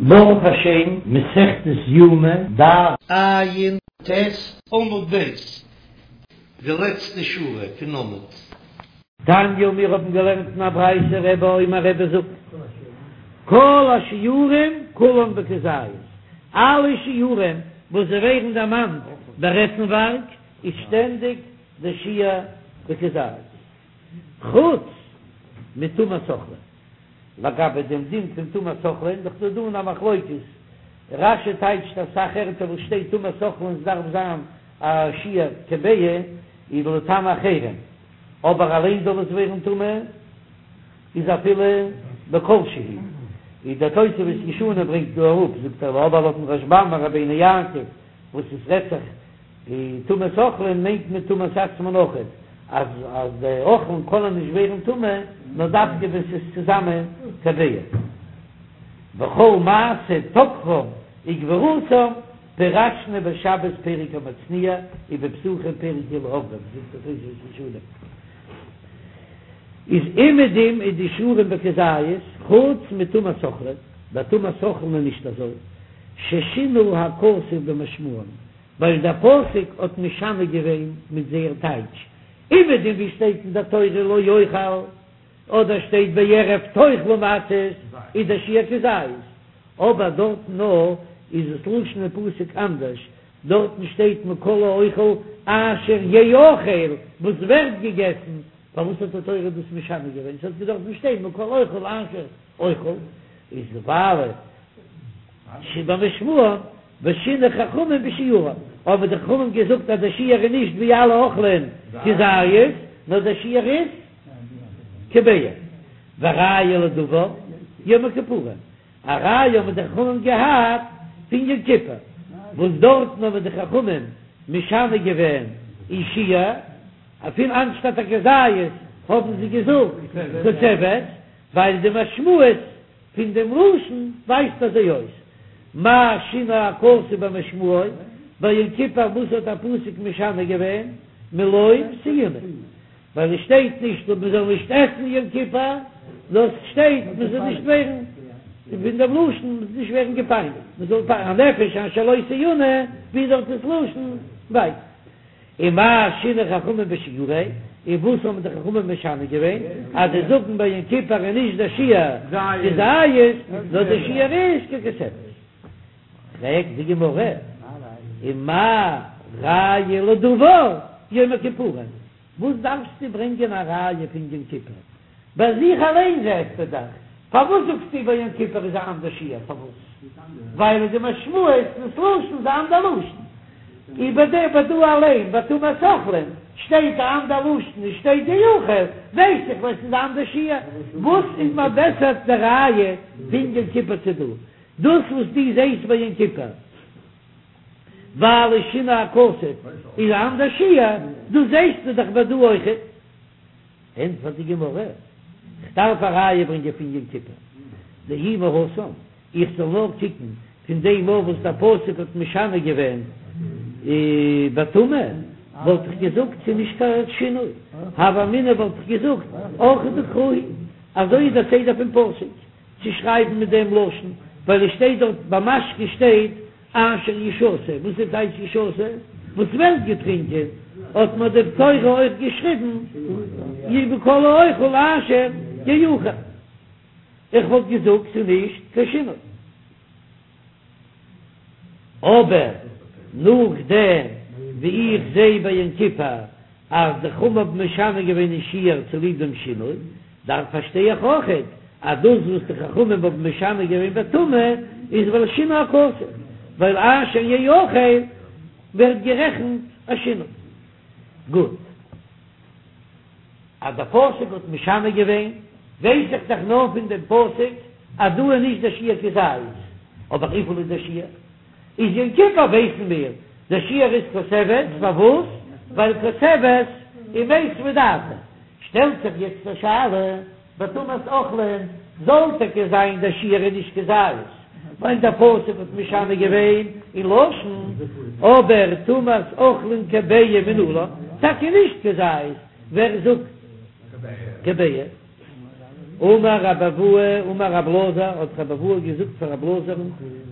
ברוך השם, מסכת יומא, דף ע"ט עמוד ב', די לעצטע שורה פון עמוד. תניא, מיר האבן געלערנט אין א ברייתא רבי אומר רבי זאגט, כל השיעורים כולן בכזית, אלע שיעורים וואס זיי ווערן דערמאנט ביי עסנווארג איז שטענדיג די שיעור בכזית, חוץ מטומאת אוכלין. לגבי דעם דין פון טומאת אוכלין, דאך דא דא א מחלוקת, רש"י טייטשט אסאך ערטער וואס שטייט טומאת אוכלין ס'דארף זיין א שיעור כביעה איז לטמא אחרים, אבער אליין זאל עס ווערן טמא איז אפילו בכל שהוא, איז דער תוספות ישנים ברענגט דא אראפ, זאגט ער אבער לויטן רשב"ם און רבינו יעקב וואס עס רעדט זיך די טומאת אוכלין מיינט מען טומאת עצמן אויכעט, אז אז די אוכלין קענען נישט ווערן טמא נאר דווקא ווען ס'איז צוזאמען כביעה. וכל מעשה תוקפם וגבורתם פירשנו בשבת פרק המצניע ובפסחים פרק אלו עוברים, זאגט דער תוספות ישנים איז אומעדום איז די שיעורים בכזית חוץ מטומאת אוכלין, ביי טומאת אוכלין איז נישט אזוי, ששינה הכתוב במשמעם, ווייל דער פסוק האט משנה געווען מיט זייער טייטש, אומעדום ווי שטייט אין דער תורה לא יאכל, אדער שטייט בערב תאכלו מצות, איז דער שיעור כזית, אבער דארטן נאר איז דאס לשון אין פסוק אנדערש, דארטן שטייט מכל האוכל אשר יאכל, וואס ווערט געגעסן, פארוואס האט די תורה דאס משנה געווען, ס'האט געדארפט שטיין מכל האוכל אשר אוכל, איז ווייל שבמשמעם ושינו חכמים בשיעורם, האבן די חכמים געזאגט אז דער שיעור איז נישט ווי אלע אוכלים כזית, נאר דער שיעור איז כביעה. וראיה לדבר, יום הכיפורים, א ראיה האבן די חכמים געהאט פון יום כיפור, וואס דארטן האבן די חכמים משנה געווען אין שיעור, אפילו אנשטאט א כזית האבן זיי געזאגט כותבת, ווייל די משמעות פון דעם לשון ווייזט אזוי אויס, מה שינה הכתוב במשמעו, ביי יום כיפור וואס האט א פסוק משנה געווען, מלא תעונה, ווייל עס שטייט נישט אז מען זאל נישט עסן יום כיפור, נאר עס שטייט מען זאל נישט ווערן, פון דעם לשון מען זאל נישט ווערן געפייניגט, מען זאל הנפש אשר לא תעונה, ווי דארט איז לשון ווייט. ומה שינו חכמים בשיעורו, און וואס האבן די חכמים משנה געווען, אז זיי זאגן ביי יום כיפור איז נישט דער שיעור כזית, נאר דער שיעור איז ככותבת. פרעגט די גמרא, ומה ראיה לדבר יום הכיפורים, וואס דארפסטו ברענגען א ראיה פון יום כיפור? ביי זיך אליין זעסטו דאך, פארוואס זאגסטו ביי יום כיפור איז א אנדער שיעור? פארוואס? ווייל די משמעות דאס לשון איז א אנדער לשון. איבער דעם ביי דא אליין ביי טומאת אוכלין שטייט א אנדער לשון און שטייט יאכל, ווייס איך ווייל ס'איז א אנדער שיעור. וואס איז מיר בעסער די ראיה פון יום כיפור צו דא? דאס וואס דו זעסט ביי יום כיפור ווייל שינה הכתוב איז א אנדער שיעור, דאס זעסטו דאך ביי דא אויכעט. ענטפערט די גמרא, כ'דארף א ראיה ברענגען פון יום כיפור, דאי מהתם, איך זאל נאר קוקן פון דעם מאל וואס דער פסוק האט משנה געווען בטומאה, וואלט איך געזאגט ס'איז נישט קיין שינוי, הוה אמינא וואלט איך געזאגט אורחא דקרא הוא, אזוי איז דער סדר פון פסוק צו שרייבן מיט דעם לשון, ווייל עס שטייט דארט ביי משקה שטייט אשר ישתה, וואס איז טייטש ישתה? וואס ווערט געטרינקען, האט מיר די תורה אויך געשריבן מכל האוכל אשר יאכל, איך וואלט געזאגט ס'איז נישט קיין שינוי, אבער נאכדעם ווי איך זע ביי יום כיפור אז די חכמים האבן משנה געווען אין שיעור צוליב דעם שינוי, דארף פארשטיי איך אויכעט אז דאס וואס די חכמים האבן משנה געווען בטומאה איז ווייל שינה הכתוב, ווייל אשר יאכל ווערט גערעכנט א שינוי. גוט. אז דער פסוק האט משנה געווען, ווייס איך דאך נאר פון דעם פסוק אז דא איז נישט דער שיעור כזית, אבער וויפיל איז דער שיעור? איז יום כיפור ווייסן מיר דער שיעור איז כותבת, פארוואס? ווייל כותבת איז מיתבא דעתיה. שטעלט זיך יעצט א שאלה, ביי טומאת אוכלין זאל טאקע זיין דער שיעור איז נישט כזית, ווייל דער פסוק האט משנה געווען אין לשון, אבער טומאת אוכלין כביעה מנלן, טאקע נישט כזית, ווער זאגט כביעה? אמר רבי אבהו אמר רב אלעזר, האט רבי אבהו געזאגט פאר רב אלעזר'ן,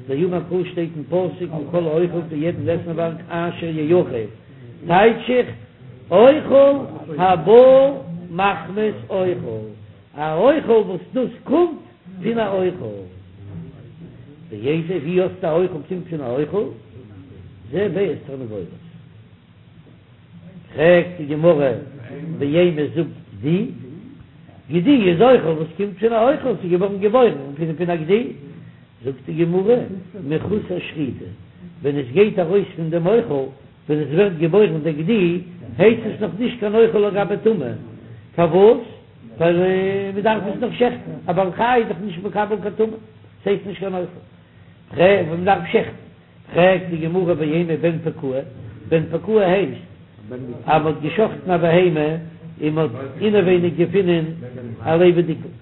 דאמר קרא שטייט אין פסוק מכל האוכל פון יעדן עסנווארג אשר יאכל, טייטש איך אוכל הבא מחמת אוכל, א אוכל וואס דאס קומט פון א אוכל. ואיזה, ווי האסטו א אוכל קומט פון א אוכל? זה ביצת תרנגולת. פרעגט די גמרא ואימא זאג גדי, גדי איז אוכל וואס קומט פון א אוכל, ס'איז געווארן געבוירן פון פון א גדי, זאגט די גמרא מחוסר שחיטה, ווען עס גייט ארויס פון דעם אוכל, ווען עס ווערט געבוירן דער גדי, הייסט עס נאך נישט קיין אוכל לגבי טומאה, פארוואס? ווייל מען דארף עס נאך שעכטן, א בעל חי איז דאך נישט מקבל קיין טומאה, ס'הייסט נישט קיין אוכל, מען דארף שעכטן. פרעגט די גמרא ואימא בן פקועה, בן פקועה הייסט אז מ'האט געשחטן א בהמה און מ'האט אינעווייניג געפונען א לעבעדיגן,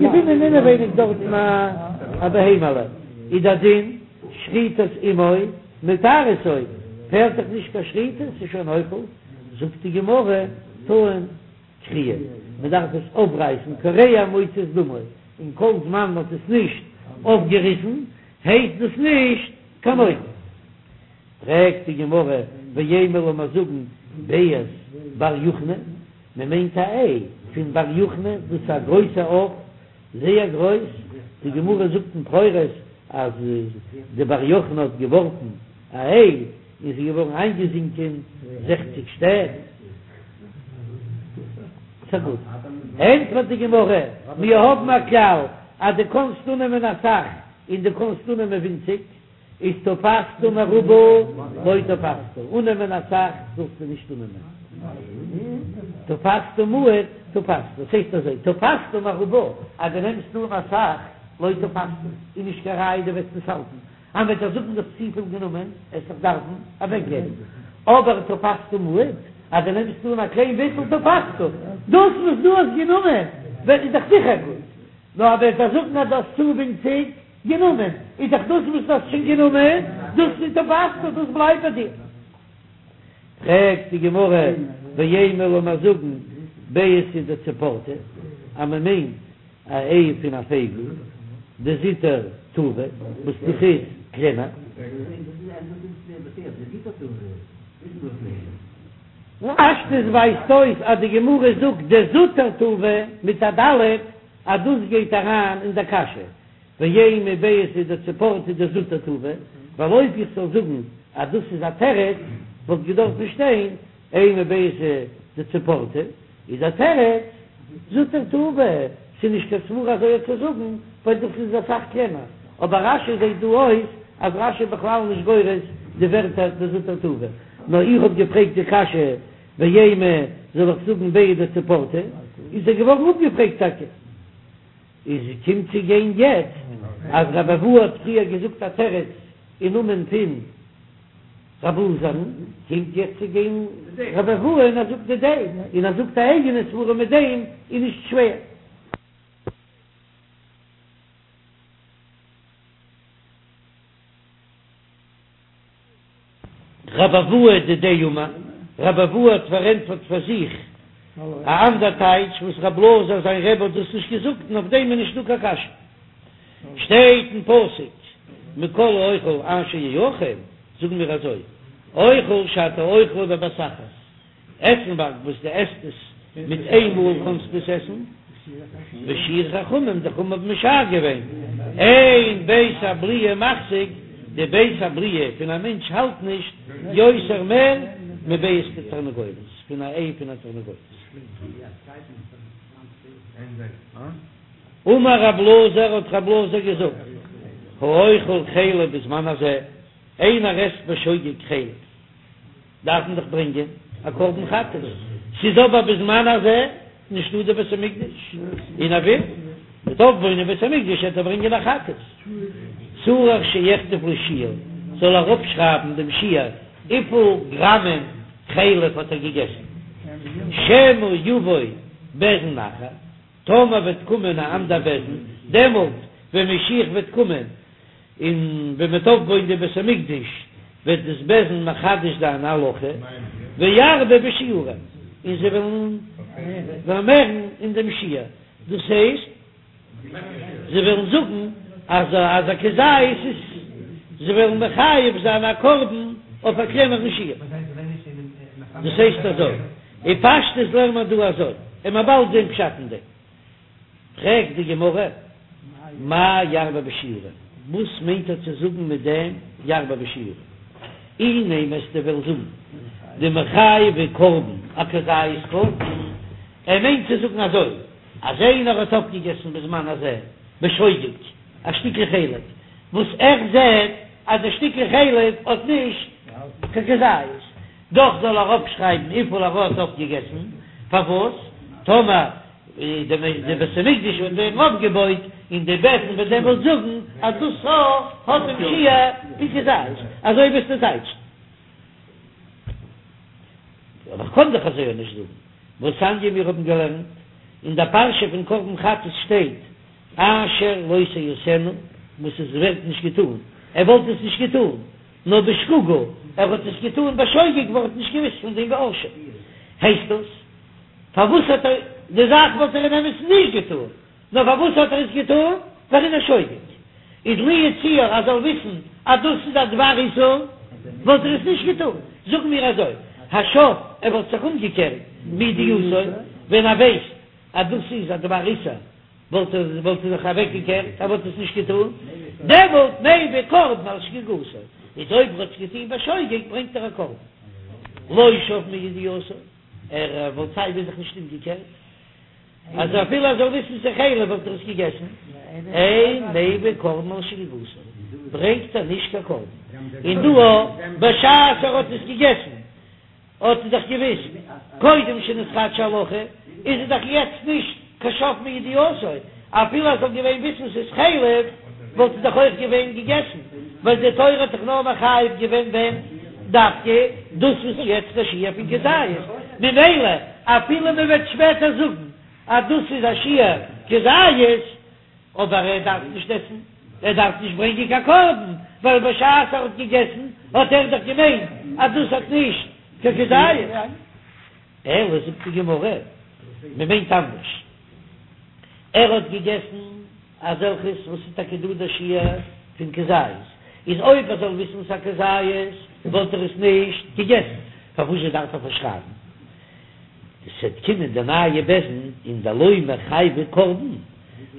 געפונען אינעווייניג דארטן א בהמה'לע, איז דער דין שחיטת אמו מטהרתו, פעלט דאך נישט קיין שחיטה, ס'איז שוין אוכל, זאגט די גמרא טעון קריעה, מ'דארף עס אויפרייסן, קורע ומוציא את דמו, און כל זמן מ'האט עס נישט אויפגעריסן הייסט דאס נישט קיין אוכל. פרעגט די גמרא, ואימא לאמיר זאגן ביצת בר יוכני, מען מיינט א איי פון בר יוכני, דאס איז א גרויסע עוף, זייער גרויס, די גמרא זאגט אין בכורות אז די בר יוכני האט געווארפן א איי און ס'איז געווארן איינגעזינקען זעכציג שטעט. ס'גוט. ענטפערט די גמרא, מיר האבן א כלל אז דו קאנסט אננעמען אסאך און דו קאנסט אננעמען ווינציג, איז תפסת מרובה לא תפסת, אננעמען אסאך זאלסטו נישט אננעמען, תפסת מועט תפסת, דאס הייסט אזוי, תפסת מרובה, אז דו נעמסט אן אסאך, לא תפסת, איז נישט קיין ראיה דו וועסט עס האלטן, אז מ'וועט דיר זאגן דו האסט צופיל גענומען, וועסט דאך דארפן אוועקגעבן, אבער תפסת מועט, אז דו נעמסט אן א קליין ביסל תפסת, דאס וואס דו האסט גענומען וועט איז דאך זיכער גוט, נאר אז מ'וועט דיר זאגן אז דו האסט צו ווינציג גענומען, איז דאך דאס וואס דו האסט שוין גענומען, דאס איז תפסת, דאס בלייבט ביי דיר. פרעגט די גמרא, ואימא לאמיר זאגן ביעתא דציפורתא, אז מען מיינט א איי פון א פייגל, דזוטר טובא, וואס דאס איז קלענער. פשטות ווייזט אויס אז די גמרא זאגט דזוטר טובא מיט א ד' אז דאס גייט אריין אין דער קשיא, ואימא ביעתא דציפורתא דזוטר טובא, ווייל אויב איך זאל זאגן אז דאס איז א תירוץ וואלט געדארפט שטיין אימא ביעתא דציפורתא, איז דער תירוץ זוטר טובא, ס'איז נישט קיין סברא אזוי צו זאגן, ווייל דאס איז אסאך קלענער, אבער רש"י זעט דא אויס אז רש"י איז בכלל נישט גורס די ווערטער דזוטר טובא, נאר איך האב געפרעגט די קשיא ואימא זאל איך זאגן ביעתא דציפורתא, איז ער געווארן אפגעפרעגט טאקע. איז קומט צו גיין יעצט אז רבי אבהו האט פריער געזאגט א תירוץ אין נאמען פון רב אלעזר'ן, קומט יעצט צו גיין רבי אבהו און ער זאגט דידיה, און ער זאגט א אייגענע סברא מיט דעם איז נישט שווער. רבי אבהו דידיה אמר, רבי אבהו האט פארענטפערט פאר זיך א אנדער טייטש וואס רב אלעזר זיין רבי האט דאס נישט געזאגט און אויף דעם איז נישטא קיין קשיא. שטייט אין פסוק מכל האוכל אשר יאכל, זאגן מיר אזוי, אוכל שאתה אוכלו בבת אחת, עסנווארג וואס דו עסט עס מיט איין מאל קענסטו עס עסן, ושיערו חכמים, די חכמים האבן משער געווען, אין בית הבליעה מחזיק, די בית הבליעה פון א מענטש האלט נישט יותר מער מביצת תרנגולת, פון א איי פון א תרנגולת. אמר רב אלעזר, האט רב אלעזר געזאגט, האוכל חלב בזמן הזה, איינער עסט בשוגג חלב, דארף מען דאך ברענגען א קרבן חטאת, ס'איז אבער בזמן הזה נישטא די בית המקדש, און ער וויל מ'וועט אויפבויען די בית המקדש וועט ער ברענגען א חטאת, צריך שיכתוב לו שיעור, זאל ער אראפשרייבן דעם שיעור וויפיל גראמען חלב האט ער געגעסן, שמא יבוא בית דין אחר, טאמער וועט קומען א אנדער בית דין, דעמאלט ווען משיח וועט קומען, און ווען מ'וועט אויפבויען די בית המקדש וועט דאס בית דין מחדש זיין א הלכה, וירבה בשיעורין, און זיי וועלן פארמערן אין דעם שיעור. דאס הייסט זיי וועלן זאגן אז אז א כזית איז, זיי וועלן מחייב זיין א קרבן אויף א קלענערן שיעור. דאס הייסט אזוי, אין פשטות לערנט מען דא אזוי, און מ'וועט באלד זען פשט אין דעם. פרעגט די גמרא, מאי ירבה בשיעורין, וואס מיינט ער צו זאגן מיט דעם ירבה בשיעורין? אי נימא וועסטו וועלן זאגן דמחייבי קרבן אכזית קטן, ער מיינט צו זאגן אזוי, אז איינער האט אויפגעגעסן בזמן הזה בשוגג א שטיקל חלב, וואס ער זעט אז די שטיקל חלב האט נישט קיין כזית, דאך זאל ער אויפשרייבן וויפיל ער האט אויפגעגעסן, פארוואס? טאמער די בית המקדש וועט ווערן אויפגעבויט און די בית דין וועט דעמאלט זאגן אז דאס האט דעם שיעור פון כזית, אזוי וועסטו טייטשן. אבער כ'קען דאך אזוי אויך נישט זאגן. והתניא מיר האבן געלערנט אין דער פרשה פון קרבן חטאת שטייט אשר לא תעשינה, וואס עס ווערט נישט געטאן, ער וואלט עס נישט געטאן, נאר בשגגה, ער האט עס געטאן בשוגג ווייל ער האט נישט געוואוסט פון דעם באשם. הייסט דאס, פארוואס האט ער, די זאך וואלט ער אין אמת'ן נישט געטאן, נאר פארוואס האט ער עס געטאן? ווייל ער איז א שוגג. איז לו יצוייר אז ער זאל וויסן אז דאס איז א דבר איסור, וואלט ער עס נישט געטאן. זאגן מיר אזוי, השב, ער וואלט זיך אומגעקערט מידיעתו, ווען ער ווייסט אז דאס איז א דבר איסור, וואלט ער וואלט ער זיך אוועקגעקערט, ער וואלט עס נישט געטאן, דעמאלט מביא קרבן על שגגתו, איז אויב ער האט עס געטון בשוגג ברענגט ער א קרבן. לא שב מידיעתו, ער וואלט סיי ווי זיך נישט אומגעקערט. אז אפילו ער זאל וויסן ס'איז חלב וואלט ער עס געגעסן, אין מביא קרבן על שגגתו, ברענגט ער נישט קיין קרבן, און דא אויך בשעת ער האט עס געגעסן האט ער דאך געוויסט קודם שנתחדשה הלכה, איז ער דאך יעצט נישט קיין שב מידיעתו, אפילו ער זאל געווען וויסן ס'איז חלב וואלט ער דאך אויך געווען געגעסן, ווייל די תורה האט דאך נאר מחייב געווען ווען דווקא דאס וואס איז יעצט א שיעור פון כזית, ממילא אפילו מען וועט שפעטער זאגן אז דאס איז א שיעור כזית, אבער ער דארף נישט עסן, ער דארף נישט ברענגען קיין קרבן, ווייל בשעת ער האט געגעסן האט ער דאך געמיינט אז דאס האט נישט קיין כזית. אלא זאגט די גמרא, מען מיינט אנדערש, ער האט געגעסן אזעלכעס וואס איז טאקע דא דער שיעור פון כזית, איז אויב ער זאל וויסן ס'א כזית וואלט ער עס נישט געגעסן, פארוואזשע דארף ער פארשרייבן? ס'עט קומען די נייע בית דין און דלא מיחייבי קרבן,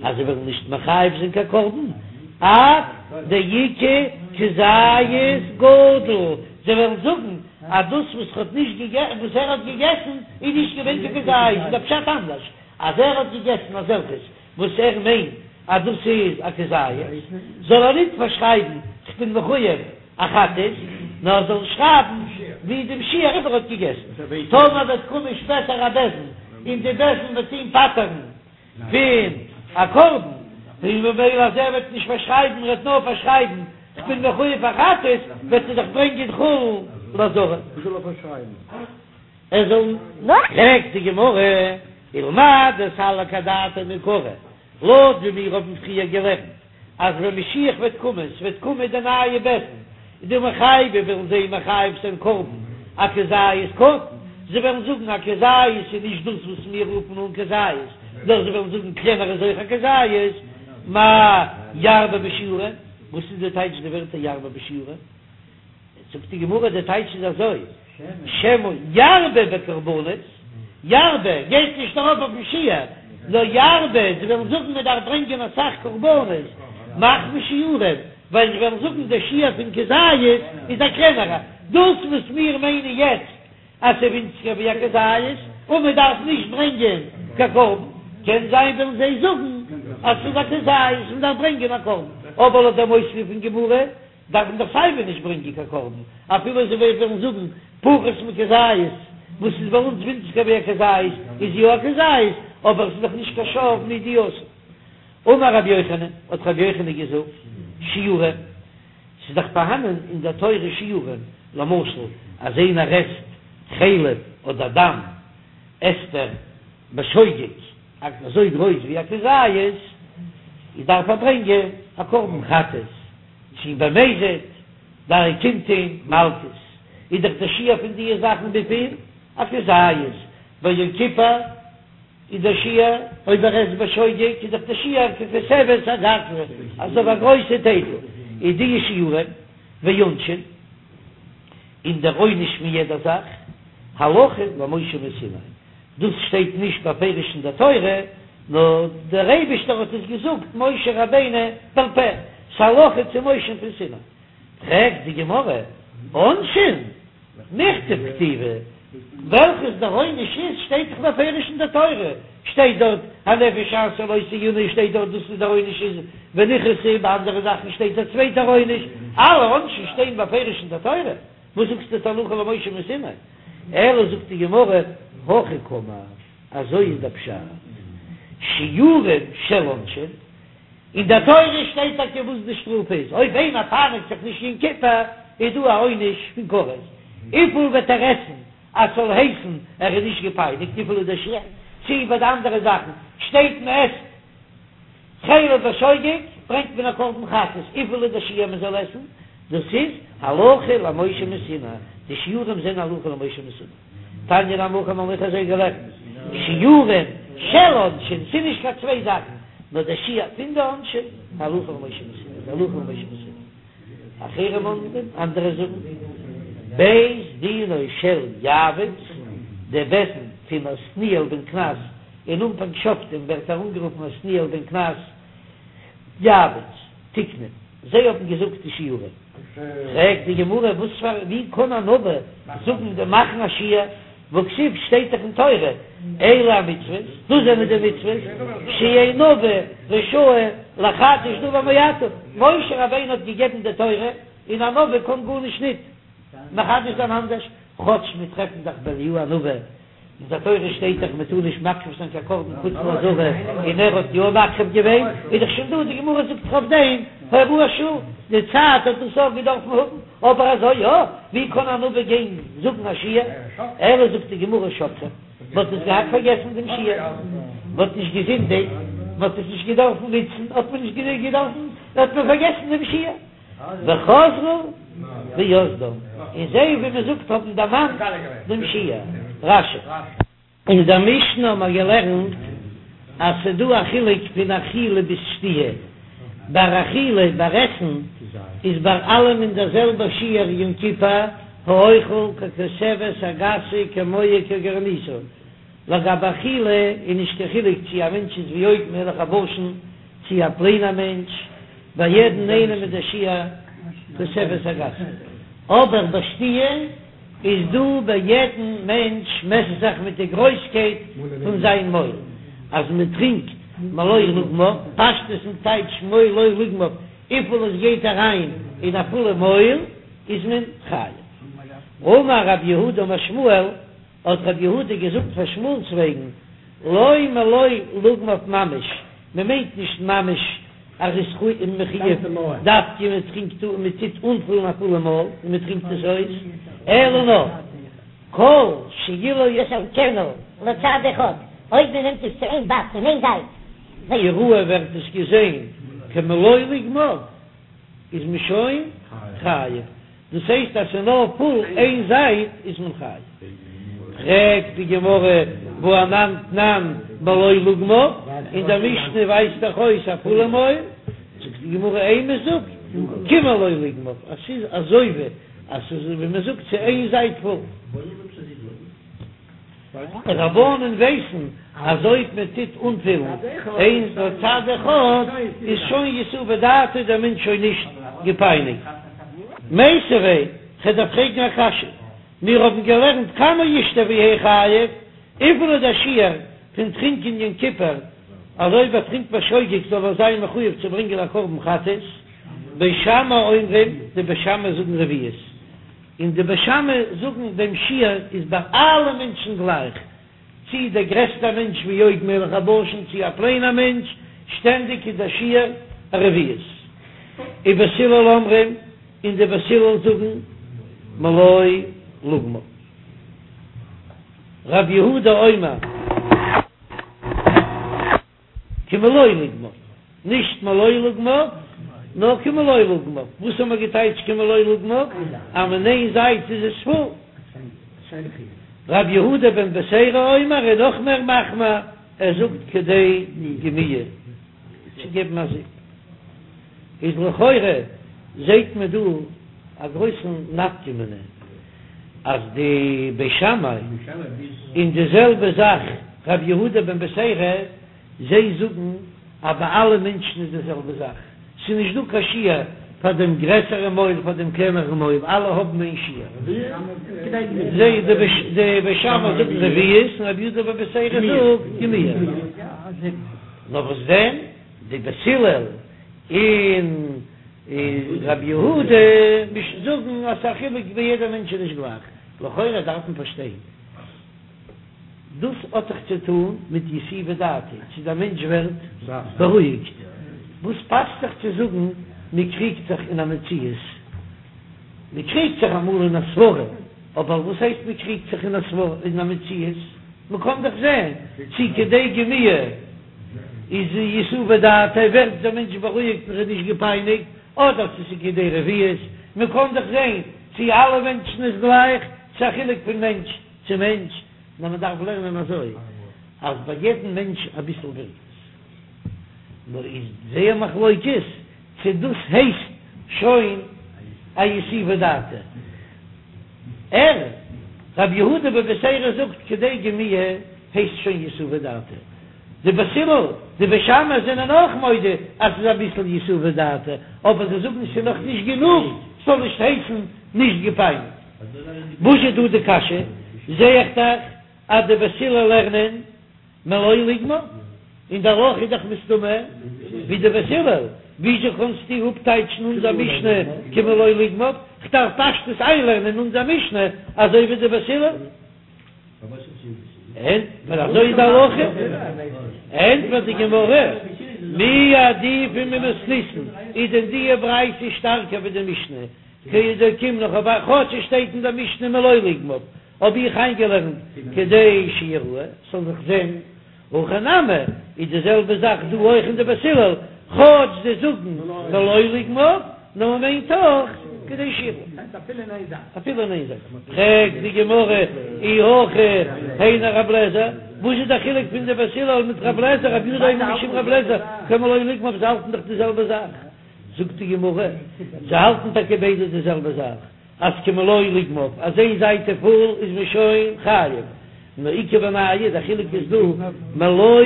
אז זיי וועלן נישט מחייב זיין קיין קרבן, עד דאיכא כזית גדול, זיי וועלן זאגן אז דאס וואס ער האט נישט געגעסן, וואס ער האט געגעסן איז נישט געווען קיין כזית, איז דער פשט אנדערש, אז ער האט געגעסן אזעלכעס וואס ער מיינט אז דאס איז א כזית, זאל ער ניט פארשרייבן כ'בין מחויב א חטאת, נאר ער זאל שרייבן ווי דעם שיעור וואס ער האט געגעסן. טאמער וועט קומען שפעטער א בית דין און די בית דין וועט אים פטר'ן פון א קרבן, און ממילא אז ער וועט נישט פארשרייבן, ער וועט נאר פארשרייבן כ'בין מחויב א חטאת, וועט ער דאך ברענגען חולין לעזרה. ער זאל. פרעגט די גמרא, ולמאי דסליק אדעתיה מעיקרא, לויט ווי מיר האבן פריער געלערנט אז ווען משיח וועט קומען, ס'וועט קומען די נייע בית דין, דמחייבי וועלן זיי מחייב זיין קרבן אכזית קטן, זיי וועלן זאגן א כזית איז נישט דאס וואס מיר רופן אן כזית, נאר זיי וועלן זאגן קלענער איז אויך א כזית, מאי ירבה בשיעורין, וואס איז די טייטש די ווערטער ירבה בשיעורין? זאגט די גמרא די טייטש איז אזוי, שמא ירבה בקרבנות, ירבה גייט נישט ארויף אויפן שיעור, נאר ירבה, זיי וועלן זאגן מען דארף ברענגען אסאך קרבנות, מחמת שיעורין, ווייל זיי וועלן זאגן דער שיעור פון כזית איז א קלענערע, דאס וואס מיר מיינען יעצט אז ס'איז ווינציגער ווי א כזית און מען דארף נישט ברענגען קיין קרבן, קען זיין וועלן זיי זאגן אז ס'איז א כזית און מען דארף ברענגען א קרבן, אבער לויט דעם אויספיר פון גמרא דארף מען דאך סייווי נישט ברענגען קיין קרבן, אפילו זיי וועלן זאגן פחות מכזית, וואס איז ביי אונז ווינציגער ווי א כזית, איז יא א כזית, אבער עס איז דאך נישט קיין שב מידיעתו. אמר רבי יוחנן, האט רבי יוחנן געזאגט, שיעורין, ס'איז דאך פארהאנען אין דער תורה שיעורים, למשל אז איינער עסט חלב אדער דם, עסט ער בשוגג אזוי גרויס ווי א כזית, איז דארף ער ברענגען א קרבן חטאת. צי במזיד דאן קומט אים מלקות, איז דאך דער שיעור פון דיע זאכן וויפיל? א כזית, ביי יום כיפור. איז דער שיעור, אויב ער עסט בשוגג איז דאך דער שיעור ככותבת הגסה, אזוי ווי א גרויסע טייטל, איז די שיעורים ועונשין, און דער עונש פון יעדער זאך, הלכה למשה מסיני, דאס שטייט נישט בפירוש אין דער תורה, נאר דער אייבישטער האט עס געזאגט משה רבינו בעל פה, ס'הלכה צו משה פון סיני. פרעגט די גמרא, עונשין? מיכתב כתיבי, וועלכעס דער עונש איז שטייט דאך בפירוש אין דער תורה, שטייט דארט הנפש אשר לא תעונה שטייט דארט דאס איז דער עונש איז ונכרתה, ביי אנדערע זאכן שטייט א צווייטער עונש, אלע עונשים שטייען בפירוש אין דער תורה, וואס זאגסטו הלכה למשה מסיני? אלא זאגט די גמרא, הכי קאמר, אזוי איז דער פשט, שיעורים של עונשין. אין דער תורה שטייט טאקע וואס די שטראף איז, אויב איינער פייניגט זיך נישט יום כיפור איז דא א עונש פון כרת, וויפיל וועט ער עסן אז ס'זאל הייסן ער איז נישט געפייניגט, וויפיל איז דער שיעור, צי ביי די אנדערע זאכן שטייט מען עסט חלב בשוגג ברענגט מען א קרבן חטאת, וויפיל איז דער שיעור מען זאל עסן, דאס איז הלכה למשה מסיני, די שיעורים זענען הלכה למשה מסיני. תניא נמי הכי מ'האט אויך אזוי געלערנט, שיעורים של עונשין, ס'איז נישט קיין צוויי זאכן, נאר דער שיעור פון די עונשין, הלכה למשה מסיני, איז הלכה למשה מסיני. אחרים אומרים, אנדערע זאגן, בית דינו של יעבץ, דער בית דין פון עתניאל בן קנז, אין אנפאנג שופטים ווערט ער אנגערופן עתניאל בן קנז, יעבץ, תיקנו, זיי האבן געזאגט די שיעורים. פרעגט די גמרא, וואס פאר ווי קען א נביא זאגן די מאכן א שיעור, והכתיב שטייט דאך אין תורה, אלה המצוות, דאס זענען די מצוות, שאין נביא רשאי לחדש דבר מעתה, משה רבינו האט געגעבן די תורה, און א נביא קען גארנישט ניט מחדש זיין אנדערש, כאטש מיר טרעפן דאך ביי אליהו הנביא. אין דער תורה שטייט דאך מען טאר נישט מקריב זיין קיין קרבן חוץ לעזרה, און ער האט יא מקריב געווען, איז דאך שוין דא, די גמרא זאגט דאך אויף דעם הוראת שעה, די צייט האט דאס אויך געדארפן האבן, אבער אזוי יא, ווי קען א נביא גיין זאגן א שיעור, אלא זאגט די גמרא שכחום, מען האט עס געהאט פארגעסן דעם שיעור, מען האט נישט געזינדיגט, מען האט עס נישט געדארפן נוצן, האט מען נישט געדארפן, האט מען פארגעסן דעם שיעור. וחזרו ויסדום, און זיי ווי מען זאגט האבן דערמאנט דעם שיעור. רש"י. אין דער משנה האבן מיר געלערנט אז ס'איז דא א חילוק פון אכילה ביז שתיה, ביי אכילה, ביי עסן, איז ביי אלעמען דער זעלבער שיעור יום כיפור, האוכל ככותבת הגסה כמוה כגרעיניתה, לגבי אכילה איז נישט קיין חילוק צי א מענטש איז ווי עוג מלך הבשן צי א פלעינער מענטש, ביי יעדן איינעם איז דער שיעור כותבת הגסה, אבער ביי שתיה איז דא ביי יעדן מענטש מעסט זיך מיט די גרויסקייט פון זיין מויל, אז מען טרינקט מלא לוגמיו, פשטות איז טייטש מלא לוגמיו, וויפיל עס גייט אריין אין א פולע מויל איז מען חייב. אמר רב יהודה אמר שמואל. האט רב יהודה געזאגט פאר שמואל'ס וועגן, לא מלא לוגמיו ממש, מען מיינט נישט ממש אז ער איז מחויב דווקא מען טרינקט אן מען טוט אנפולן א פולע מויל און מען טרינקט עס אויס, אלא נאר כל שאילו יסלקנו לצד אחד, אויב מען נעמט עס צו איין באק פון איין זייט. יראה ווערט עס געזען כמלא לוגמיו איז מען שוין חייב. דאס הייסט אז ס'איז נאר פול איין זייט איז מען חייב. פרעגט די גמרא והא אנן תנן מלא לוגמיו, אין דער משנה ווייזט דאך אויס א פולע מויל, זאגט די גמרא אימא זאג כמלא לוגמיו אז ס'איז אזוי ווי אז ס'איז ווי מ'זאגט צו איין זייט פול. רבנן ווייסן אז אויב מען טוט אנפילן איין לצד אחד איז שוין יתובי דעתיה דער מענטש שוין נישט געפייניגט. מיתיבי, כ'דארף פרעגן א קשיא, מיר האבן געלערנט כמה ישתה ויהא חייב, וויפיל איז דער שיעור פון טרינקען יום כיפור אז אויב ער טרינקט בשוגג זאל ער זיין מחויב צו ברענגען א קרבן חטאת, בית שמאי אומרים, די בית שמאי זאגן רביעית. און די בית שמאי זאגן דעם שיעור איז ביי אלע מענטשן גלייך, צי דער גרעסטער מענטש ווי עוג מלך הבשן צי א פליינער מענטש, שטענדיג איז דער שיעור א רביעית. ובית הלל אומרים, און די בית הלל זאגן מלא לוגמיו. רב יהודה אומר. כמלא לוגמיו, נישט מלא לוגמיו, נאר כמלא לוגמיו, וואס האבן מיר געטייטשט כמלא לוגמיו? אז אין איין זייט איז עס פול. רבי יהודה בן בתירא אומר איז נאך מער מחמיר. ער זאגט כדי גמיעה צו געבן א זיפ. איז לכאורה זעהט מען דא א גרויסן נפקא מינה אז די בית שמאי און די זעלבע זאך רבי יהודה בן בתירא זיי זאגן אז ביי אלע מענטשן איז די זעלבע זאך, ס'איז נישט דא קיין שיעור פאר דעם גרעסערע מויל פאר דעם קלענערן מויל, אלע האבן איין שיעור. זיי די בית שמאי זאגן רביעית און רבי יהודה בן בתירא זאגט גמיעה. נאר וואס דען די בית הלל און רבי יהודה זאגן אז ס'איז א חילוק ביי יעדע מענטש איז נישט גלייך. לכאורה דארף מען פארשטיין. דאס האט דאך צו טון מיט יתיבי דעתיה, צו דער מענטש ווערט בארואיגט. וואס פאסט זיך צו זאגן מען קריגט זיך אין א מציאות? מען קריגט זיך אמאל אין א סברה, אבער וואס הייסט מען קריגט זיך אין א סברה, אין א מציאות? מען קען דאך זען צו כדי גמיעה איז יתיבי דעתיה ווערט דער מענטש בארואיגט און ער איז נישט געפייניגט, אדער צו ס'איז כדי רביעית, מען קען דאך זען צו אלע מענטשן איז גלייך, ס'איז א חילוק פון מענטש צו מענטש, נאר מען דארף לערנען אזוי אז ביי יעדן מענטש אביסל ווירקט עס, נאר איז זייער מחלוקת צו דאס הייסט שוין א יתיבי דעתיה. ער, רבי יהודה בן בתירא זאגט כדי גמיעה הייסט שוין יתיבי דעתיה. די בית הלל, די בית שמאי זענען אויך מודה אז ס'איז אביסל יתיבי דעתיה, אבער זיי זאגן ס'איז נאך נישט גענוג ס'זאל נישט הייסן נישט געפייניגט. וואס איז דא די קשיא? זעה איך דאך אז די בית הלל לערנען מלא לוגמיו, און די הלכה איז דאך מסתמא ווי די בית הלל, וויאזוי קענסטו אפטייטשן אונזער משנה כמלא לוגמיו? כ'דארף פשטות איינלערנען אונזער משנה אזוי ווי די בית הלל. ענטפער אזוי איז די הלכה, ענטפערט די גמרא, מי עדיפא ממתניתין, איז דען די ברייתא שטארקער ווי די משנה? כדאוקימנא כאטש עס שטייט אין דער משנה מלא לוגמיו, האב איך איינגעלערנט כדי שיראה, ס'זאל זיך זען, הכא נמי איז די זעלבע זאך דא אויך אין די בית הלל, כאטש זיי זאגן מלא לוגמיו, נאר מ'מיינט אויך כדי שיראה. אפילו אין איין זייט. פרעגט די גמרא אי הכי היינו רב לעזער, וואס איז די חילוק פון די בית הלל מיט רב לעזער, רבי יהודה אומר משום רב לעזער כמלא לוגמיו זיי האלטן דאך די זעלבע זאך. זאגט די גמרא, זיי האלטן טאקע ביידע די זעלבע זאך, אז כמלא לוגמיו, אז איין זייט איז פול איז מען שוין חייב, נאר איכא בינייהו, די חילוק איז דא מלא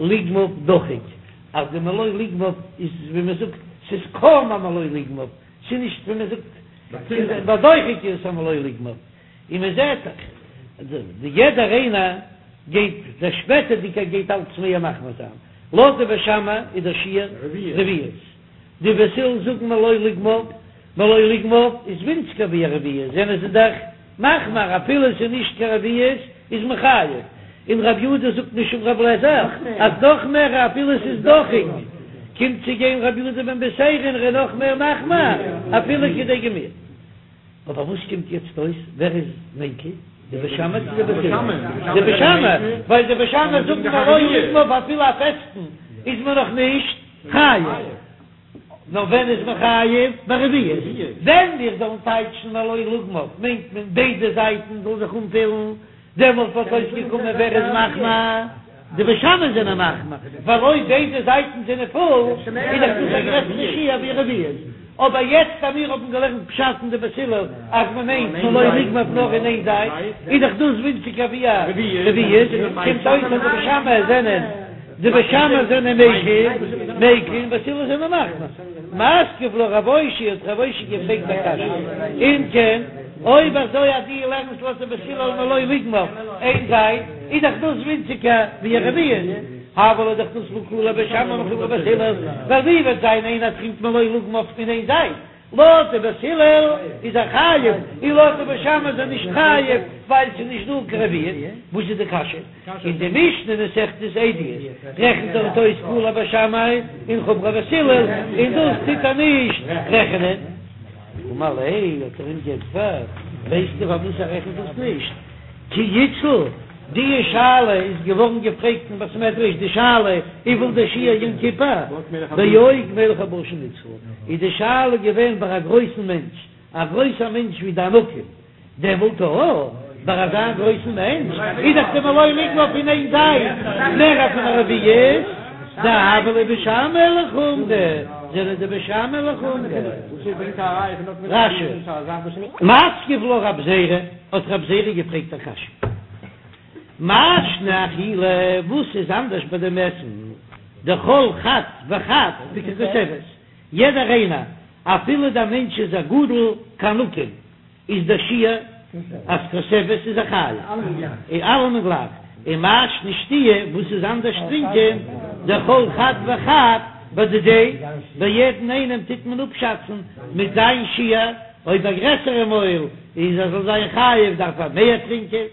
לוגמיו דחוק, אז די מלא לוגמיו איז ווי מען זאגט, ס'איז קוים א מלא לוגמיו, ס'איז נישט ווי מען זאגט בדוחק איז עס א מלא לוגמיו, און מען זעט דאך די יעדער איינער גייט, דער שפעטערדיגער גייט אלץ מער מחמיר זיין, לויט די בית שמאי איז דער שיעור רביעית, די בית הלל זאגן מלא לוגמיו, מלא לוגמיו איז ווינציגער ווי א רביעית, זענען זיי דאך מחמיר אפילו עס איז נישט קיין רביעית איז מען חייב, און רבי יהודה זאגט משום רבי אליעזר אז נאך מער אפילו עס איז דוחק, קומט צו גיין רבי יהודה בן בתירא און ער איז נאך מער מחמיר אפילו כדי גמיעה. אבער וואס קומט יעצט אויס? ווער איז מקיל? די בית שמאי צו די בית הלל? די בית שמאי, ווייל די בית שמאי זאגן מלא לוגמיו אפילו א פעסטן איז מען נאך נישט חייב. נאר ווען איז מען חייב? ביי רביעית. ווען מיר זאלן טייטשן מלא לוגמיו מיינט מען ביידע זייטן זאל זיך אנפילן, דעמאלט וואלט אויסגעקומען ווער איז מחמיר? די בית שמאי זענען מחמיר, ווייל אויב ביידע זייטן זענען פול איז דאך דאס א גרעסערע שיעור ווי רביעית. אבער יעצט אז מיר האבן געלערנט פשט אין די בית הלל אז מען מיינט מלא לוגמיו נאר אין איין זייט, איז דאך דאס ווינציגער ווי א רביעית, קומט אויס אז די בית שמאי זענען די בית שמאי זענען מקיל, מקיל און בית הלל זענען מחמיר. מתקיף לה רב אושעיא האט רב אושעיא געפרעגט א קשיא, אם כן, אויב אזוי אז דו לערנסט לויט די בית הלל מלא לוגמיו איין זייט, איז דאך דאס ווינציגער ווי א רביעית, הוה ליה דאך דאס קלא לבית שמאי מחומרא לבית הלל, ווייל ווי וועט זיין איינער טרינקט מלא לוגמיו אין איין זייט, לויט די בית הלל איז ער חייב, און לויט די בית שמאי איז ער נישט חייב, ווייל ס'איז נישט דא קיין רביעית. וואס איז די קשיא? אין די משנה מסכת עדיות רעכנט דארט אויס קולא בית שמאי און חומרא בית הלל, און דאס טוט ער נישט רעכענען. אמר ליה, האט ער אים געענטפערט, ווייסטו פארוואס ער רעכנט דאס נישט? כי אתשיל, די שאלה איז געווארן געפרעגט אין בית מדרש, די שאלה וויפיל דער שיעור יום כיפור, בעוג מלך הבשן אתשיל, איז די שאלה געווען ביי א גרויסן מענטש, א גרויסער מענטש ווי די ענקים, דעמאלט אויך. ביי אזא גרויסן מענטש איז דאך די מלא לוגמיו פון איין זייט מער פון א רביעית, דהוה להו בית שמאי לחומרא, זענען די בית שמאי לחומרא. רש"י. מתקיף לה רב זירא, האט רב זירא געפרעגט א קשיא. מאי שנא אכילה, וואס איז אנדערש ביי דעם עסן, דכל חד וחד בככותבת, יעדער איינער, אפילו דער מענטש איז א גדול כענקים, איז דער שיעור אז כותבת איז ער חייב, און אלעמען גלייך, ומאי שנא שתיה, וואס איז אנדערש טרינקען, דכל חד וחד בדידיה, ביי יעדן איינעם טוט מען אפשאצן מיט זיין שיעור, אויב א גרעסערע מויל איז ער זאל זיין חייב דארף ער מער טרינקען.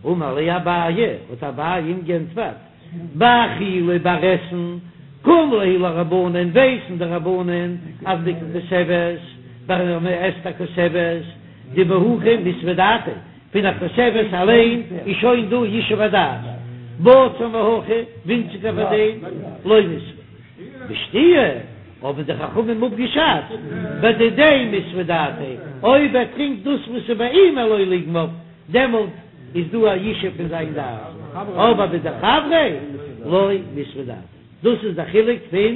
אמר ליה אביי, האט אביי אים גענטפערט, באכילה ביי עסן, קים להו לרבנן, ווייסן די רבנן אז בככותבת, ווען מען עסט א כותבת, דבהכי מיתבא דעתיה, פון א כותבת אליין איז שוין דא ישוב הדעת, בצר מהכי, ווינציגער פאר דעם, לא מיתבא. בשתיה האבן די חכמים אפגעשאצט, בדידיה מיתבא דעתיה, אויב ער טרינקט דאס וואס איז ביי אים מלא לוגמיו, דעמאלט איז דא א ישוב פון זיין דעת, אבער בדחבריה לא מיתבא דעתיה. דאס איז דער חילוק פון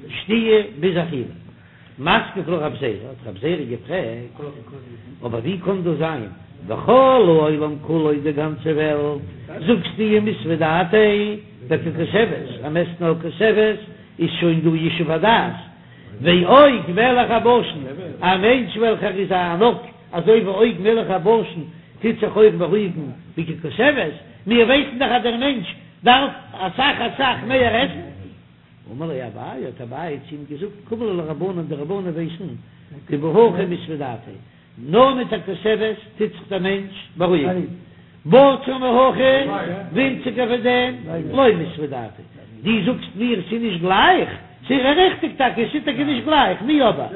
שתיה ביז אכילה. מתקיף לה רב זירא, האט רב זירא געפרעגט, אבער ווי קען דאס זיין, וכל העולם כולו די גאנצע וועלט, זאגסטו מיתבא דעתיה בככותבת, אז מ'עסט נאר כותבת איז שוין דא ישוב הדעת, ועוג מלך הבשן, א מענטש וועלכער איז א ענק אזוי ווי עוג מלך הבשן טוט זיך אויך בארואיגן בככותבת, מיר ווייסן דאך אז דער מענטש דארף אסאך אסאך מער עסן. אמר ליה אביי, האט אביי צו אים געזאגט, קים להו לרבנן, די רבנן ווייסן, דבהכי מיתבא דעתיה, נאר מיט א כותבת טוט זיך דער מענטש בארואיגן, בצר מהכי, ווינציגער פון דעם, לא מיתבא דעתיה, דו זאגסט מיר ס'איז נישט גלייך, ס'איז ריכטיג טאקע, ס'איז טאקע נישט גלייך, מיהו אבער,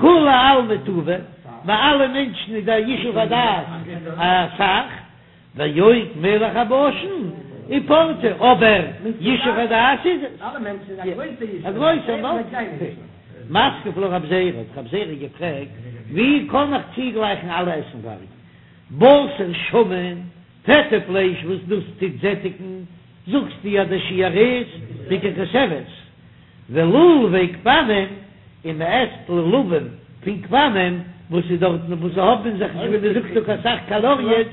כולי עלמא טובא, ביי אלע מענטשן איז דער ישוב הדעת אסאך, ועוג מלך הבשן ופורתא, אבער ישוב הדעת איז עס. א גרויסער מתקיף לה רב זירא, האט רב זירא געפרעגט, ווי קען איך צוגלייכן אלע עסנווארג? בשר שמן, פעטע פלייש וואס דאס טוט זעטיגן, זאגסטו אז דער שיעור איז בככותבת, ולולבי גפנים, און מען עסט לולבים פון גפנים וואס איז דארטן וואס זיי האבן אין זיך נישט ווי מען זאגט דא קיין סך קאלאריעס,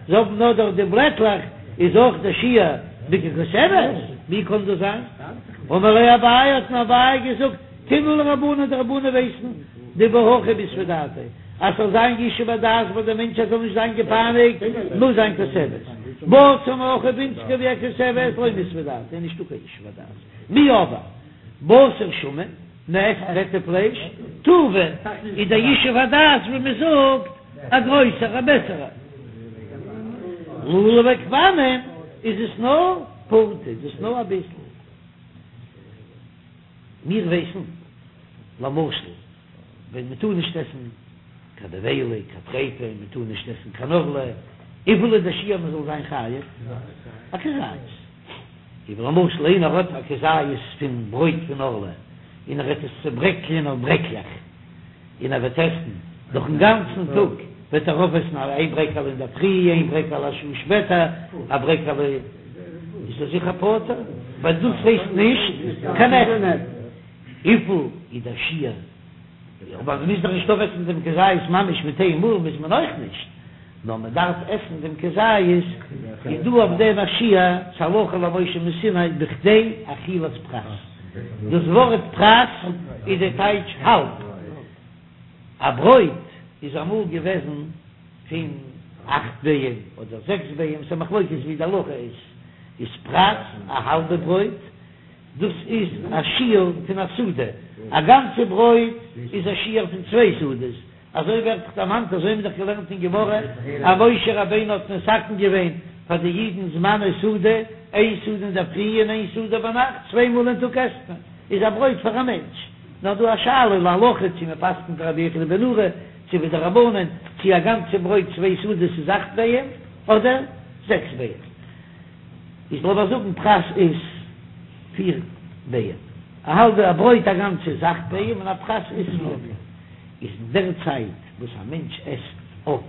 זיי האבן נאר דארט די בלעטלעך, איז אויך דער שיעור בככותבת? ווי קען דאס זיין? אמר ליה אביי, האט אים אביי געזאגט, קים להו לרבנן, די רבנן ווייסן דבהכי מיתבא דעתיה, אז ס'זאל זיין ישוב הדעת ביי די מענטש אז זאל נישט זיין געפייניגט, מוז זיין כותבת, בצר מהכי ווינציגער ווי א כותבת, לא מיתבא דעתיה, נישטא קיין ישוב הדעת. מיהו אבער בשר שמן, מ'עסט פעטע פלייש, טובא איז דער ישוב הדעת ווי מען זאגט א גרויסער א בעסערער. לולבי גפנים איז עס נאר פורתא, איז עס נאר אביסל. מיר ווייסן למשל ווען מען טאר נישט עסן קיין נבילה, קיין טריפה, מען טאר נישט עסן קיין ערלה, וויפיל איז דער שיעור מען זאל זיין חייב? א כזית. אויב למשל איינער האט א כזית פון ברויט פון ערלה און ער וועט עס צוברעקלען אויף ברעקלעך און ער וועט עסן דורכן גאנצן טאג וועט ער אויפעסן איין ברעקעלע אינדערפרי איין ברעקעלע א שעה שפעטער א ברעקעלע איז ער זיכער פטור ווייל דאס הייסט נישט קיין עסן. וויפיל איז דער שיעור? אבער מען מוז דאך נישט אויפעסן דעם כזית ממש מיט איין מאל מוז מען אויך נישט. נאר מען דארף עסן דעם כזית, איז דא אויף דעם א שיעור, ס'הלכה למשה מסיני בכדי אכילת פרס, דאס ווארט פרס איז די טייטש האלב, א ברויט איז אמאל געוועזן פון אכט ביעים אדער זעקס ביעים, ס'א מחלוקת ווי די הלכה איז, איז פרס א האלבע ברויט, דאס איז א שיעור פון א סעודה, א גאנצע ברויט איז א שיעור פון צוויי סעודות, אזוי ווערט דאך דערמאנט, אזוי האבן מיר דאך געלערנט אין גמרא, אז משה רבינו האט מתקן געווען פאר די אידן זמני סעודה, איין סעודה אינדערפרי און איין סעודה ביינאכט, צוויי מאל אין טאג עסט מען, איז א ברויט פאר א מענטש. נאר דא א שאלה להלכה צו מען פסק'נט ווי רבי יוחנן בן נורי, צו ווי די רבנן, צו א גאנצע ברויט צוויי סעודות איז אכט ביעים אדער זעקס ביעים. איז לאמיר זאגן פרס איז פיר ביעים, א האלבע א ברויט א גאנצע איז אכט ביעים און א פרס איז פיר ביעים. איז אין דער צייט וואס א מענטש עסט אויף.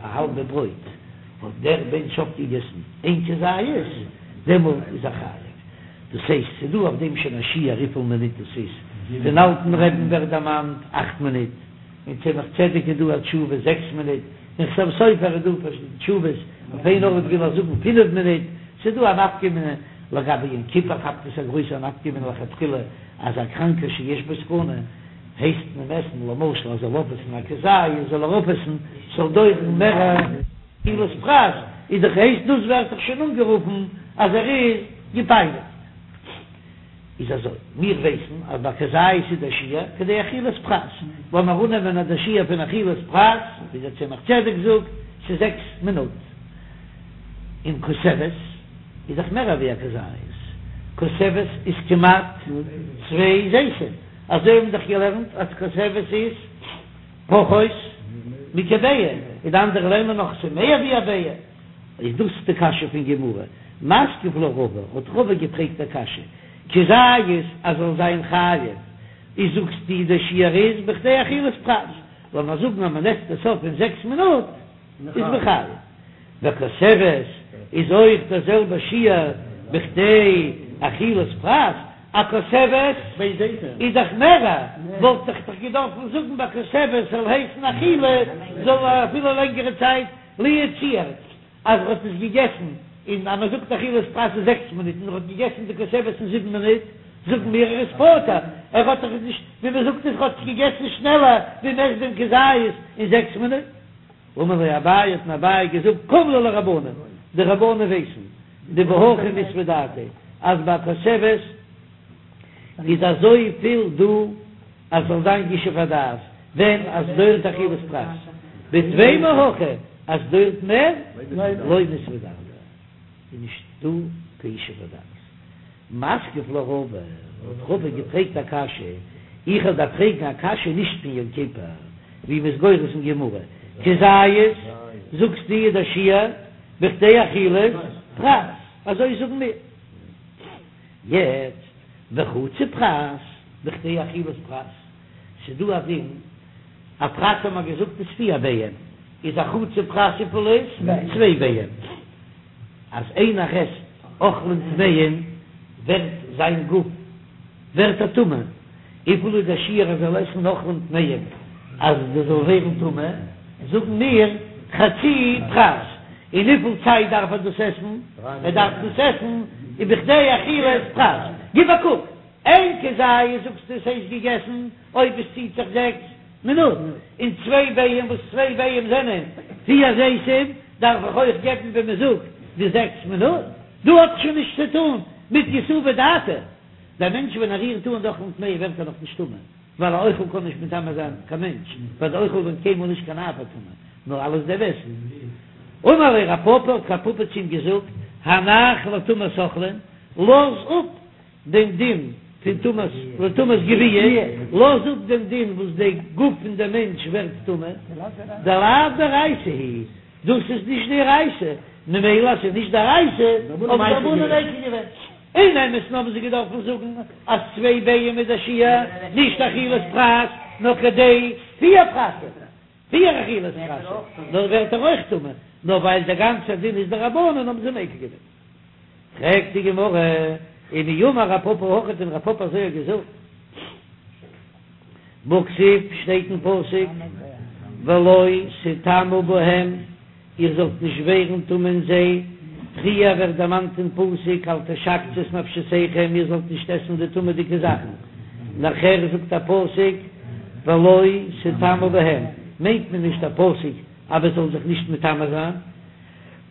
א האלבע ברויט האט דער מענטש אויפגעגעסן איין כזית, דעמאלט איז ער חייב. דאס הייסט ס'איז דא אויף דעם שוין א שיעור וויפיל מינוט דאס איז, פון אלטן רבי'ן ווערט דערמאנט אכט מינוט, אין צמח צדק איז דא א תשובה זעקס מינוט, אין חתם סופר איז דא פארשידענע תשובות, אויף איין ארט וויל ער זאגן פינף מינוט, ס'איז דא א נפקא מינה, לגבי יום כיפור כאפט עס א גרויסע נפקא מינה לכתחילה אז א קראנקער שיש בו סכנה הייסט מען עסן למשל אז זאל אויפעסן א כזית זאל ער אויפעסן ס'זאל דויערן מער אכילת פרס איז דאך הייסט דאס ווערט דאך שוין אנגערופן אז ער איז געפייניגט. איז אזוי, מיר ווייסן אז ביי כזית איז דער שיעור כדי אכילת פרס, לאמיר אננעמען אז דער שיעור פון אכילת פרס, ווי דער צמח צדק זאגט, ס'איז זעקס מינוט, און כותבת איז דאך מער אווי א כזית, כותבת איז כמעט צוויי זיתים, אזוי האבן מיר דאך געלערנט אז כותבת איז פחות מכביעה, און די אנדערע לערנען נאך ס'איז מער ווי א ביעה. איז דאס די קשיא פון גמרא? מתקיף לה רבא, האט רבא געפרעגט א קשיא, כזית אז זאל זיין חייב, איז זאגסטו די שיעור איז בכדי אכילת פרס, לאמיר זאגן אז מען עסט עס אויף אין זעקס מינוט איז מען חייב, וכותבת איז אויך דער זעלבע שיעור בכדי אכילת פרס, א כותבת איז דאך מערער, וואלט איך דאך געדארפן זאגן ביי כותבת זאל הייסן אכילה זאל אפילו לענגערע צייט. לו יצוייר אז ער האט עס געגעסן אין אז מען זאגט אכילת פרס איז זעקס מינוט און ער האט געגעסן די כותבת אין זיבן מינוט, זאגן מיר ער איז פטור, ער האט דאך נישט ווי מען זאגט עס ער האט עס געגעסן שנעלער ווי מען עסט דעם כזית אין זעקס מינוט. אמר ליה אביי האט אים אביי געזאגט קים להו לרבנן, די רבנן ווייסן דבהכי מיתבא דעתיה אז ביי כותבת איז אזויפיל דא אז ס'זאל זיין ישוב הדעת ווען אז ס'דויערט אכילת פרס, בטפי מהכא אז ס'דויערט מער לא מיתבא דעתיה איז נישט דא קיין ישוב הדעת. מתקיף לה רבא, האט רבא געפרעגט א קשיא, איך וועל דיר פרעגן א קשיא נישט פון יום כיפור, ווי מ'איז גורס אין גמרא, כזית זאגסטו איז דער שיעור בכדי אכילת פרס, אזוי זאגן מיר. יעצט וחצי פרס בכדי אכילת פרס, ס'איז דא א דין, א פרס האט מען געזאגט איז פיר ביעים, איז א חצי פרס וויפיל איז? צוויי ביעים, אז איינער עסט אוכלים טמאים ווערט זיין גוף ווערט ער טמא, וויפיל איז דער שיעור אז ער זאל עסן אוכלים טמאים אז דאס זאל ווערן טמא, זאגן מיר חצי פרס, און וויפיל צייט דארף ער דאס עסן? ער דארף דאס עסן בכדי אכילת פרס. גיב א קוק, איין כזית זאגסטו עס הייסט געגעסן אויב עס ציט זיך זעקס מינוט, און צוויי ביעים וואס צוויי ביעים זענען פיר זיתים דארף איך אויך געבן ווי מען זאגט די זעקס מינוט, דא האט שוין נישט צו טון מיט יתובי דעתיה. דער מענטש ווען ער רירט אן די אוכלים טמאים ווערט ער נאך נישט טמא, ווייל א אוכל קען נישט מטמא זיין קיין מענטש, ווייל די אוכל ווערט קיינמאל נישט קיין אב הטומאה, נאר אלעס דער עסן. אמר ליה רב פפא, האט רב פפא צו אים געזאגט, הנח לטומאת אוכלין, לאז אפ דעם דין פון טומאת, לטומאת גויה, לאז אפ דעם דין וואס די גוף פון דעם מענטש ווערט טמא, דלאו דאורייתא היא, דאס איז נישט דאורייתא, ממילא אז ס'איז נישט דאורייתא, האבן די רבנן מיקל געווען. אין אמת'ן האבן זיי געדארפן זאגן אז צוויי ביעים איז דער שיעור, נישט אכילת פרס, נאר כדי פיר פרסים, פיר אכילת פרס, נאר ווערט ער אויך טמא, נאר ווייל דער גאנצער דין איז דרבנן האבן זיי מיקל געווען. פרעגט די גמרא, ומי אמר רב פפא הכי האט דען רב פפא אזוי געזאגט? והכתיב שטייט אין פסוק ולא תטמאו בהם, איר זאלט נישט ווערן טמא אין זיי, פריער ווערט דערמאנט אין פסוק אל תשקצו את נפשותיכם, איר זאלט נישט עסן די טמא'דיגע זאכן, נאכער זאגט א פסוק ולא תטמאו בהם, מיינט מען נישט א פסוק אז מען זאל זיך נישט מטמא זיין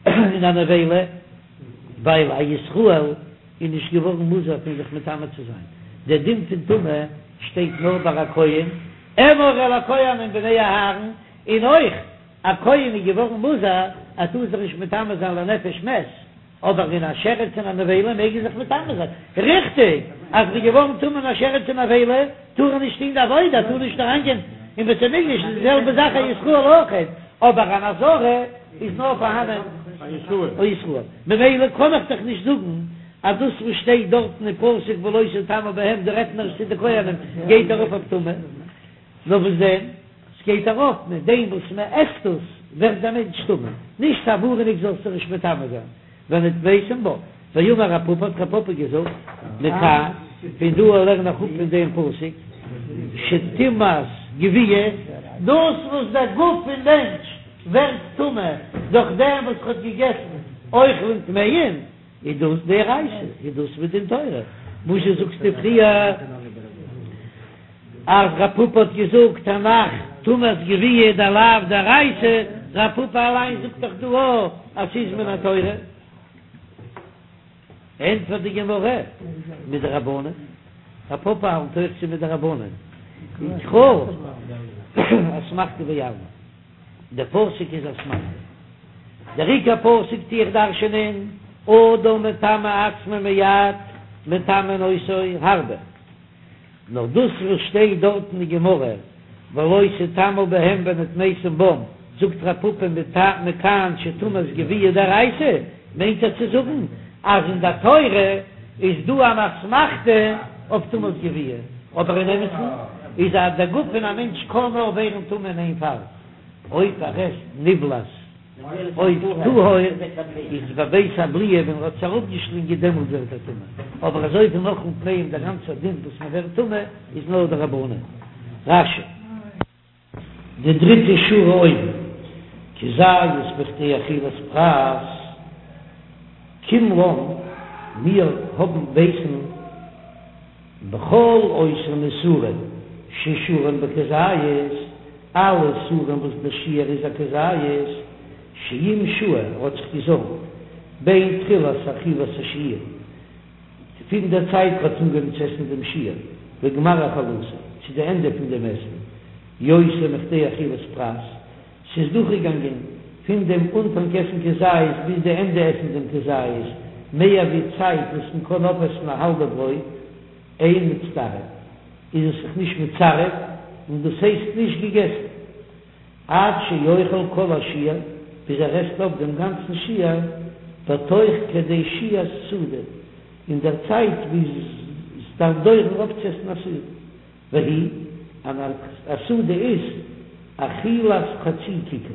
אין א נבילה, ווייל א ישראל איז נישט געווארן מוזהר פון זיך מטמא צו זיין, דער דין פון טומאה שטייט נאר ביי א כהן, אמור אל הכהנים בני אהרן, און אויך א כהן איז געווארן מוזהר ער טאר זיך נישט מטמא זיין לנפש מת, אבער אין א שרץ און א נבילה מעג ער זיך מטמא זיין, ריכטיג אז ער איז געווארן טמא אין א שרץ און נבילה טאר ער נישט טון די עבודה, ער טאר נישט אריינגיין אין בית המקדש, איז די זעלבע זאך א ישראל אויך, אבער אן אזהרה איז נאר פארהאנען א ישראל, ממילא קען איך דאך נישט זאגן אז דאס וואס שטייט דארטן אין פסוק ולא תטמאו בהם דא רעדט מען צו די כהנים גייט ארויף אויף טומאה, נאר וואס דען? ס'גייט ארויף מיט דעם וואס מ'עסט עס ווערט דער מענטש טמא, נישט א ווארענונג זאלסטו נישט מטמא זיין. ונטמתם בם, ואמר רב פפא האט רב פפא געזאגט, מכאן, פון דא לערן איך אפ פון דעם פסוק, שטומאת גווייה, דאס וואס דער גוף פון מענטש ווערט טמא דורך דעם וואס ער האט געגעסן אוכלים טמאים, איז דאס דאורייתא, איז דאס מדין תורה, וואזשע זאגסטו פריער אז רב פפא האט געזאגט הנח טומאת גווייה דלאו דאורייתא, רב פפא אליין זאגט דאך דא אויך אז ס'איז מן התורה. ענטפערט די גמרא, מדרבנן, רב פפא האלט אויך ס'איז מדרבנן, וקרא אסמכתא בעלמא. דער פסוק איז אסמכתא. דער עיקר פסוק טו איך דרש'ענען, אדם מטמא עצמו מעט, מטמאין אותו הרבה. נאר דאס וואס שטייט דארט אין די גמרא, ולא תטמאו בהם ונטמתם בם, זאגט רב פפא מכאן שטומאת גווייה דאורייתא, מיינט ער צו זאגן אז אין דער תורה איז דא אן אסמכתא אויף טומאת גווייה, אבער אין אמת'ן איז אז דער גוף פון א מענטש קען נאר ווערן טמא אין איין פאל, אויב ער עסט נבלעת עוף טהור איז בבית הבליעה ווען ער האט עס אראפגעשלינגען דעמאלט ווערט ער טמא, אבער אזוי פון אוכלים טמאים דער גאנצער דין וואס מען ווערט טמא איז נאר דרבנן. רש"י. די דריטע שורה אויבן, כזית בכדי אכילת פרס, קים לן, מיר האבן ווייסן בכל אותן איסורין ששיעורן בכזית, אלע איסורים וואס דער שיעור איז א כזית, שאם שהה ער האט זיך געזאמט בין תחילת אכילת השיעור, פון דער צייט ער האט אנגעהויבן צו עסן דעם שיעור, לגמר אכילתו, צו די ענדע פון דעם עסן, יותר מכדי אכילת פרס, ס'איז דורכגעגאנגען פון דעם אנפאנג עסן כזית ביז די ענדע עסן דעם כזית, מער ווי צייט וואס מען קען אויפעסן א האלבע ברויט, אין מצטרף, איז עס זיך נישט מצרף און דאס הייסט נישט געגעסן. עד שיאכל כל השיעור, ביז ער עסט אויף דעם גאנצן שיעור, בתוך כדי שהיית סעודה, אין דער צייט ווי עס דארף דויערן אויפצועסן א סעודה. והיא, אן א סעודה איז אכילת חצי כיכר,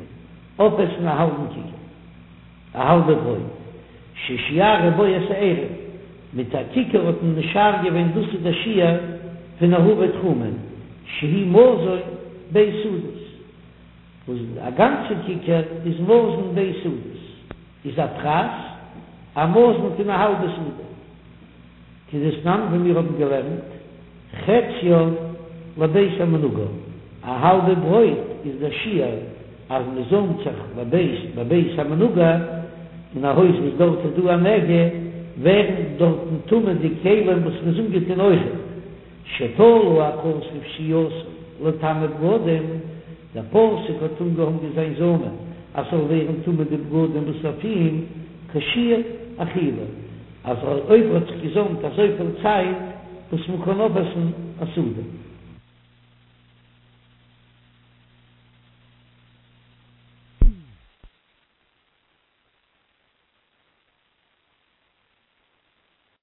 אויפעסן א האלבן כיכר, א האלבע ברויט, ששיערו בו את העירוב, מיט א כיכר האט מען משער געווען דאס איז דער שיעור פון עירובי תחומין, שהוא מזון ב' סעודות, וואס א גאנצע כיכר איז מזון ב' סעודות, איז א פרס א מזון פון א האלבע סעודה. כדתנן ווי מיר האבן געלערנט, חציה לבית המנוגע, א האלבע ברויט איז דער שיעור אז מען זאמט זיך לבית בבית המנוגע, אין א הויז וואס דארט איז דא א נגע, ווערן דארטן טמא די כלים וואס מען איז אנגעטון אויכעט, שתלה הכתוב שהייתו לטמא בגדים, דער פסוק האט אנגעהאנגען זיין זאמען אז ס'זאל ווערן טמא די בגדים וואס אויף אים כשיעור אכילה. אז אויב ער האט זיך געזאמט אזויפיל צייט וואס מען קען אויפעסן א סעודה.